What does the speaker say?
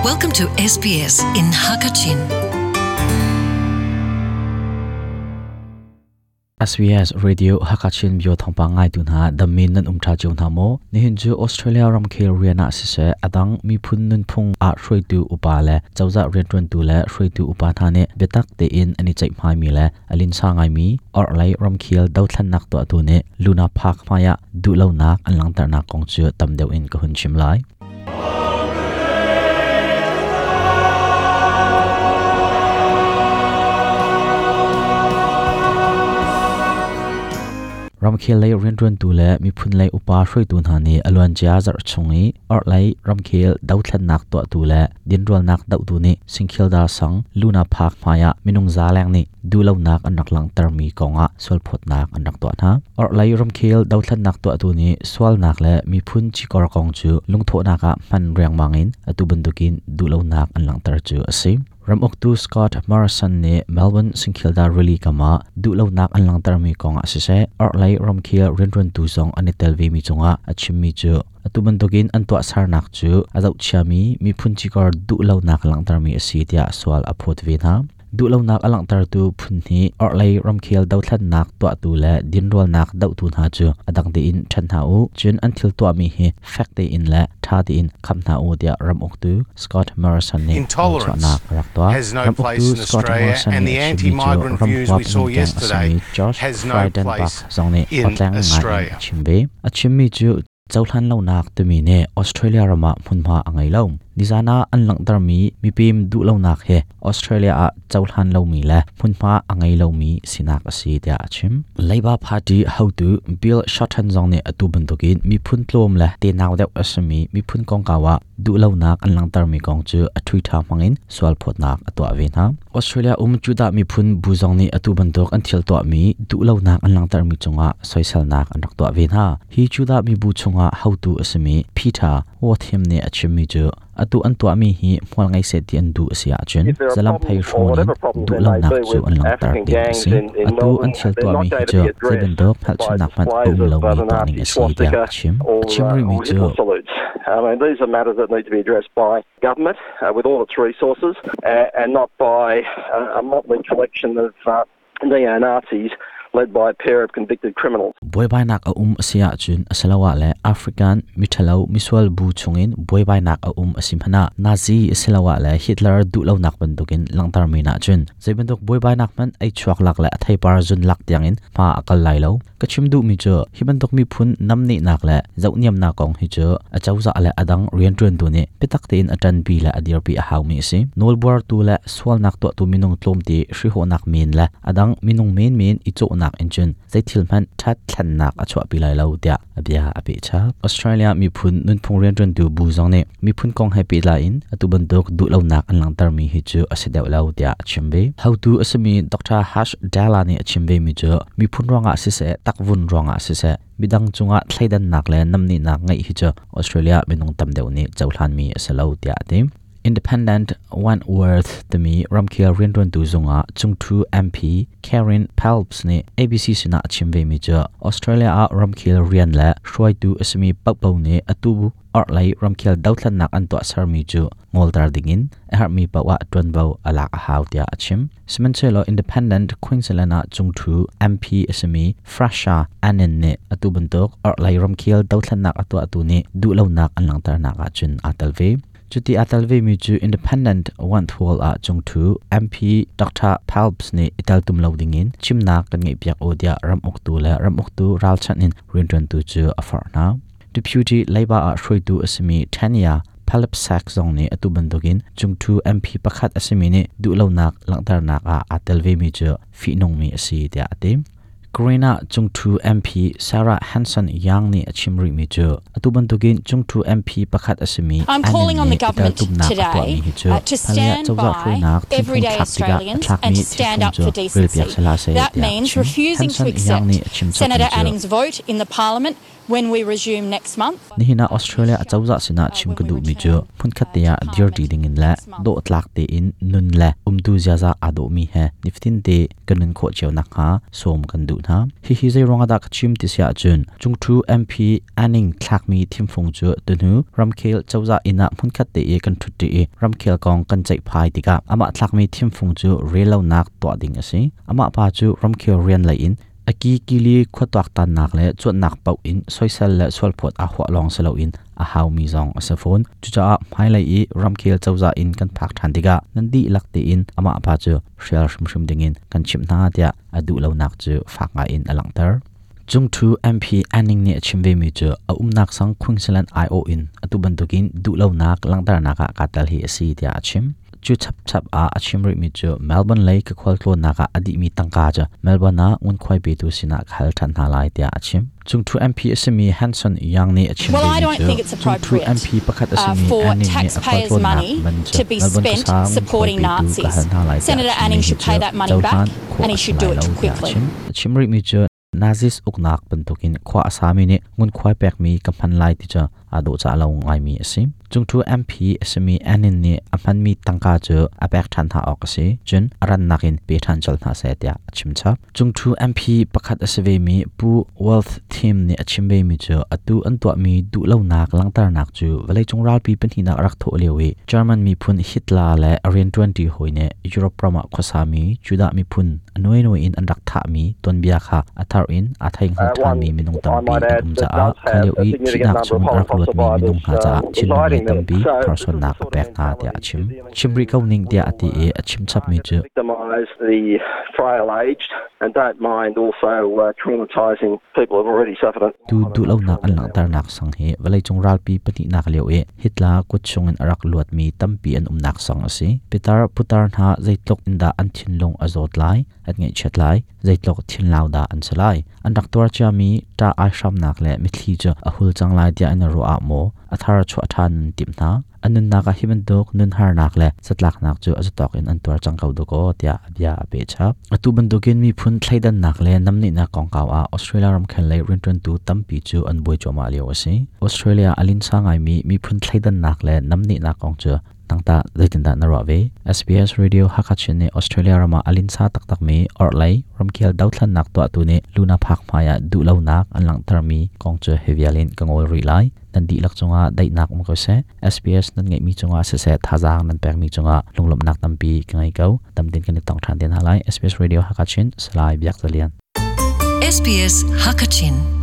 Welcome to SBS in Hakachin. SBS Radio Hakachin bio thawngpang ngaitu hna dammin nan um tha cio hna maw? Nihin cu Australia ramkhel rian ah siseh adang miphun nunphung ah hruaitu upa le cozah riantuantu le hruaitu upa hna nih biatak tein an i ceihmai mi le a linsa ngaimi orhlei ramkhel dothlennak tuahtu nih Luna Park hmaiah duhlonak an langhternak kong cu tam deuh in ka hun chim lai. Ramkhel lei rianṭuantu le miphun lei upa hruaitu hna nih a luancia zarh chung i orhlei ramkhel dothlennak tuahtu le dinrualnak dohtu nih Singkhildar sang Luna Park hmaiah minung za leng nih duhlonak an rak langhtermi kongah sualphawtnak an rak tuah hna. Orhlei ramkhel dothlennak tuahtu nih sualnak le miphun cikor kong cu lungthawhnak ah hman riangmang in atu bantukin duhlonak an langhter cu a si. Ramuktu Scott Morrison nih Melbourne Singkhildar rili kam ah duhlonak an langhtermi kongah siseh, orhlei ramkhel rianṭuantu zong an i tel vemi cungah a chimmi cu atu bantukin an tuahsernak cu a zohchiami miphun cikor duhlonak langhtermi a si tiah sual a phawt ve hna. Duhlonak a langhtertu phun hnih orhlei ramkhel dothlennak tuahtu le dinrualnak dohtu hna cu a dang tein ṭhen hna u, cun an thil tuahmi hi fek tein le ṭha tein kham hna u tiah ram uktu Scott Morrison nih Intolerance chuahnak a rak tuah. has no Ram place uktu in Scott Australia Morrison and nih the a chimmi cu anti-migrant ram views huap we saw ningkeng a yesterday simi Josh has no Frydenberg place zong nih in awtleng ngai in a Australia. chim ve. A chimmi cu cohlan lonak timi nih Australia ram ah hmunhma a ngei lo. Nizan ah an langhtermi mipem duhlonak hi Australia ah cohlan lomi le hmunhma a ngei lomi sinak a si tiah a chim. Labour Party hotu Bill Shorten zong nih atu bantukin miphun tlawm le tenau deuh a simi miphun kongkau ah duhlonak an langhtermi kong cu a Twitter hmangin sualphawtnak a tuah ve hna. Australia um Judah miphun bu zong nih atu bantuk an thil tuahmi duhlonak an langhtermi cungah soiselnak an rak tuah ve hna. Hi Judah mibu chungah hotu a simi Peter Wathim nih a chimmi cu atu an tuahmi hi hmual ngei seh ti an duh a si ahcun If there are zalamphei problems or hrawn in whatever problems there may duhlonak be cu with an langhter African ding a gangs si. in Atu an Melbourne, thil they're tuahmi not hi going to cu be zei addressed bantuk by hngalhchunnak hmanh a displays um of lomi the tuah ning Nazi a si tiah swastika a chim. A or, chim rihmi or cu Hitler salutes. I mean, these are matters that need to be addressed by government with all its resources and not by a motley collection of neo-Nazis led by a pair of convicted criminals. Buaibainak a um a si ahcun asiloah le African miṭhalo misual bu chungin buaibainak a um a si hmanh ah Nazi asiloah le Hitler duhlonak bantukin langhtermi ahcun zei bantuk buaibainak hmanh ei chuak lak le a theipar zun lak tiangin hma a kal lai lo. Ka chim duhmi cu hi bantuk miphun namnehnak le zohniamnak kong hi cu a cozah le a dang rianṭuantu nih biatak tein a ṭanpi le a dirpi a haumi a si. Nawlbuartu le sualnak tuahtu minung tlawmte hrihhawhnak men le a dang minung menmen i cawhnak in cun zeithil hmanh ṭhat thlennak a chuahpi lai lo tiah a bia a peh chap. Australia miphun nunphung rianṭuantu bu zong nih miphun kong he pehtlai in atu bantuk duhlonak an langhtermi hi cu a si deuh lo tiah a chim ve. Hotu a simi Dr. Harsh Dala nih a chim vemi cu miphun ruangah siseh, takvun ruangah siseh, midang cungah thleidannak le namnehnak ngeih hi cu Australia minung tam deuh nih cohlanmi a si lo tiah a ti. Independent Wentworth timi ramkhel rianṭuantu zungah cungṭhu MP Karen Phelps nih ABC sinah a chim vemi cu Australia ah ramkhel rian le hruaitu a simi paohpaoh nih atu orhlei ramkhel dothlennak an tuahsermi cu ngolter dingin a herhmi paoh ah ṭuanvo a lak a hau tiah a chim. Sihmanhsehlaw Independent Queensland ah cungṭhu MP a simi Frasha Annan nih atu bantuk orhlei ramkhel dothlennak a tuahtu nih duhlonak an langhternak ahcun aa tel ve. Cuti aa tel vemi cu Independent Wentworth ah cungṭhu MP Dr. Phelps nih i teltum lo dingin chimnak kan ngeihpiak u tiah ram uktu le ram uktu ralchanh in rianṭuantu cu a forh hna. Deputy Labour ah hruaitu a simi Tanya Palipsak zong nih atu bantukin cungṭhu MP pakhat a simi nih duhlonak langhternak ah aa tel vemi cu fihnungmi a si tiah a ti. Green ah cungṭhu MP Sarah Hanson Young nih a chim rihmi cu atu bantukin cungṭhu MP pakhat a simi I'm calling Annan on the nih i government teltumnak a today tuahmi hi cu to hmailei ah stand cozah by hruainak thimfung everyday thlak tikah a Australians thlakmi and to stand thimfung up cu for relpiak decency. sihlah seh That tiah a means chim. refusing to Hanson Young accept nih a chim chapmi Senator cu Anning's vote in the parliament. When we resume next month, Nihin ah Australia acozah sinah chim ka duhmi cu hmunkhat te ah dirṭi dingin le dawhtlak tein nun le umtu ziaza aa dawhmi he nifatin te kan nun khawh cio nakhnga sawm kan duh hna. Hihi zei ruangah dah ka chim ti si ahcun Cungṭhu MP Anning thlakmi thimfung cu tuhnu ramkhel cozah inn ah hmunkhat te i kan ṭhutṭi i ramkhel kong kan ceihphai tikah amah thlakmi thimfung cu rellonak tuah ding a si. Amah pa cu ramkhel rian lei in A kikili khua tuaktannak le cuanhnak paoh in soisel le sualphawt aa huah lawng si loin a haumi zong a si fawn. Cucaah hmailei i ramkhel cozah in kan phak ṭhan tikah nan dihlak tein amah pa cu hrial hrimhrim dingin kan chimh hna tiah a duh lonak cu fak ngaiin a langhter. Cungṭhu MP Anning nih a chim vemi cu a umnak sang Queensland aiawh in atu bantukin duhlonak langhternak ah kaa tel hi a si tiah a chim. Cu chapchap ah a chim rihmi cu Melbourne lei ka khualtlawnnak ah a dihmi tangka cu Melbourne ah ngunkhuai petu sinah ka hal ṭhan hna lai tiah a chim. Cungṭhu MP a simi Hanson Young nih a chim Well, I vemi don't cu think it's cungṭhu appropriate MP pakhat a simi for Anning nih a taxpayers' khualtlawnnak money man cu to be Melbourne spent khuasa ngunkhuai supporting petu ka Nazis. hal hna lai tiah a Senator chimmi Anning hi should cu pay that money cohlan back khawh and he a si should do lai it lo tiah a quickly. chim. A chim rihmi cu Nazis uknak bantukin khua a sami nih ngunkhuai pekmi ka hman lai ti cu aa dawhcah lo ngaimi a si. Cungṭhu MP a simi Annin nih a hmanmi tangka cu a pek ṭhan hna awk a si. Cun a rannak in pe ṭhan colh hna seh tiah a chimchap. Cungṭhu MP pakhat a si vemi Pu Wealth Tim nih a chim vemi cu atu an tuahmi duhlonak langhternak cu vawleicung ralpi pahnihnak a rak thawh lio i German miphun Hitler le a rianṭuanṭi hawi nih Europe ram ah khuasami Judah miphun a nuainuai in an rak thahmi tuanbia kha a thar in aa thei hngal ṭhanmi minung tampi an um caah kha lio i thihnak chung a rak luatmi minung hna caah thinlung lei tampi tharsuannak a pek hna tiah a chim. Chim rih ko ning tiah a ti i a chim chapmi cu Tu duhlonak an langhternak sang hi vawleicung ralpi pahnihnak lio i Hitler kut chungin a rak luatmi tampi an umnak sang a si. Pitar putar hna zeitluk in dah an thinlung a zawt lai, an ngaihchiat lai, zeitluk thinlau dah an si lai. An rak tuar ciami ṭah aihramnak le mitthli cu a hul cang lai tiah an i ruah ah maw a thar chuah ṭhan an timh hna. An nunnak ah hi bantuk nunharnak le zatlaknak cu a zatawk in an tuar cang ko dakaw tiah a bia a peh chap. Atu bantukin miphun thleidannak le namnehnak kongkau ah Australia ramkhel lei rianṭuantu tampi cu an buai cuahmah lio a si. Australia a linsa ngaimi miphun thleidannak le namnehnak kong cu nangtah zeitindah na ruah ve? SBS Radio Hakha Chin nih Australia ram ah a linsa taktakmi orhlei ramkhel dothlannak tuahtu nih Luna Park hmai ah duhlonak an langhtermi kong cu hi vial in ka ngawl rih lai. Nan dihlak cungah daihnak um ko seh. SBS nan ngeihmi cungah siseh thazaang nan pekmi cungah lunglawmhnak tampi ka ngei ko. Tamtin kan i tong ṭhan te hna lai. SBS Radio Hakachin, Salai Biak Zalian. SBS Hakachin.